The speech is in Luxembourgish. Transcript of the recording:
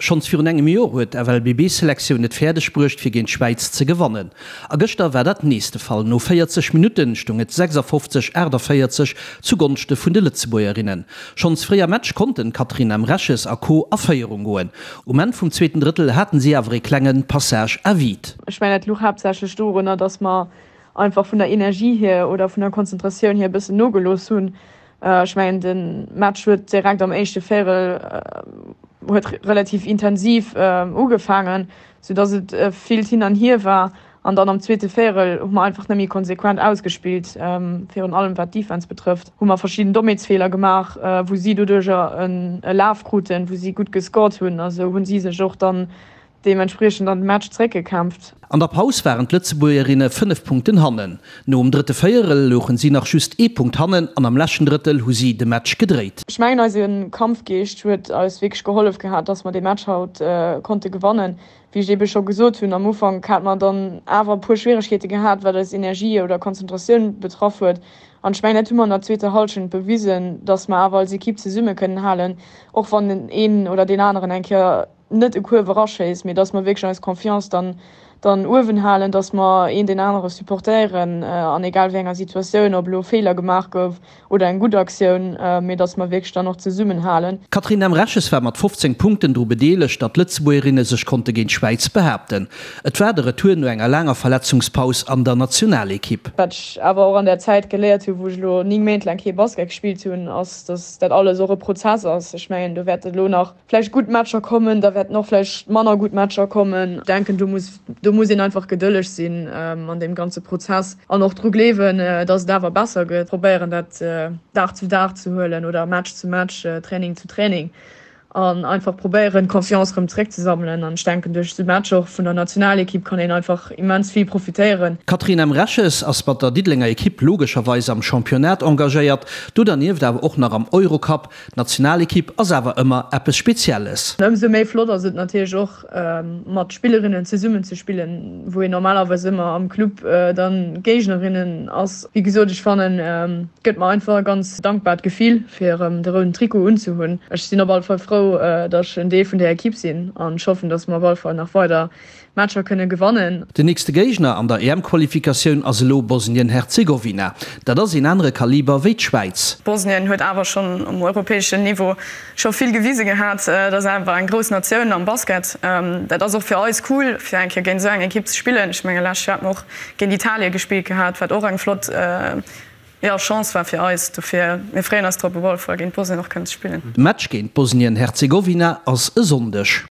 Schonns virun engem Joer huet d'FLBB-Selektioun et fäerdeg bruecht fir géint d'Schwäiz ze gewannen. A gëschter war dat nees de Fall. No 40 Minutten stoung et 56, 48 zu Gonschte vun de Lëtzebuergerinnen. Schonns fréi am Match konnten d'Catherine Emreches a Co a Féierung goen. Um Enn vum zweeten Drëttel haten si awer ee klenge Passage à vide. Ech mengen dat luch haaptsächlech dorunner, dass mer einfach vun der Energie hier oder vun der Konzentratioun hier e bëssen nogelooss hunn. Ech mengen de Match huet direkt am éischte Véierel huet relativ intensiv ugefaangen, sou dass et villt hin an hier war. An dann am zweete Véierel hu mer einfach net méi konsequent ausgespillt, virun allem wat d'Defense betrëfft, hu mer verschidden Dommheetsfeeler gemaach, wou si doduercher e Laf kruten, wou si gutt gescored hunn. A sou hunn si sech och dann deementspriechend an de Match zeréckgekämpft. An der Paus waren d'Lëtzebuergerinne 5 Punkten hannen. Nom drëtte Véierel louchen si nach just ee Punkt hannen an am leschten Drëttel hu si de Match gedréit. Ech mengen eise Kampfgeescht huet eis wierklech gehollef gehat, dass mer dee Match haut konnte gewannen. Wéi ech ebe scho gesot hunn, am Ufank hat mer dann awer e puer Schwieregkeete gehat, wat eis Energie oder Konzentratioun betraff huet. An ech mengen dat hu mer an der zweeter Hallschent bewisen, dass mer awer als Ekipp zesumme kënnen halen, och wann een oder deen aneren eng Kéier net e Kuerf eraschéisst, mee dass mer wierklech eis Confiance dann dann uewen halen, dass mer een deen anere supportéieren an egal wéi enger Situatioun, ob elo Feeler gemaach gouf oder eng gutt Aktioun, mee dass mer wierklech dann och zesummenhalen. D'Catherine Emreches war mat 15 Punkten dru bedeelegt, datt d'Lëtzebuergerinne sech konnte géint d'Schwäiz behaapten. Et war de Retour no enger laanger Verletzungspaus an der Nationalekipp. Wat ech awer och an där Zäit geléiert hunn, wou ech elo 9 Méint laang kee Basket gespillt hunn, ass, dass dat alles och e Prozess ass. Ech mengen, do wäert elo nach vläicht gutt Matcher kommen, da wäerten och vläicht manner gutt Matcher kommen. Ech denken, do muss, do muss een einfach gedëlleg sinn an deem ganze Prozess an och dru gleewen, datt et awer besser gëtt. Probéieren dat Dag zu Dag ze huelen oder Match zu Match, Training zu Training an einfach probéieren, d'Confiance erëm zeréckzesammelen. An ech denken, duerch esou Matcher och vun der Nationalekipp kann een einfach immens vill profitéieren. D'Catherine Emreches ass mat der Diddelenger Ekipp logescherweis am Championnat engagéiert, do dernieft awer och nach am Eurocup. D'Nationalekipp ass awer ëmmer eppes Spezielles. Ëmsou méi flott ass et natierlech och mat Spillerinnen zesummen ze spillen, wou een normalerweis ëmmer am Club dann Géignerinnen ass. Wéi gesot, ech fannen et gëtt mer einfach e ganz dankbart Gefill fir erëm de rouden Trikot unzehunn. Ech sinn op alle Fall frou, datt ech en Deel vun där Ekipp sinn an ech hoffen, datt mer op alle Fall nach weider Matcher kënne gewannen. Den nächste Géigner an der EM-Qualifikatioun ass elo Bosnien-Herzegowina. Dat ass een anere Kaliber wéi d'Schwäiz. Bosnien huet awer schonn um europäeschen Niveau scho vill gewise gehat. Dat ass awer eng grouss Natioun am Basket. Dat ass och fir eis cool, fir eng Kéier géint esou eng Ekipp ze spillen. Ech menge lescht Joer hat mer och géint Italie gespillt gehat, wat och eng flott, jo, Chance war fir eis. Dofir, mir freeën eis drop, op alle Fall géint Bosnien och kënnen ze spillen. De Match géint Bosnien-Herzegowina ass e Sonndeg.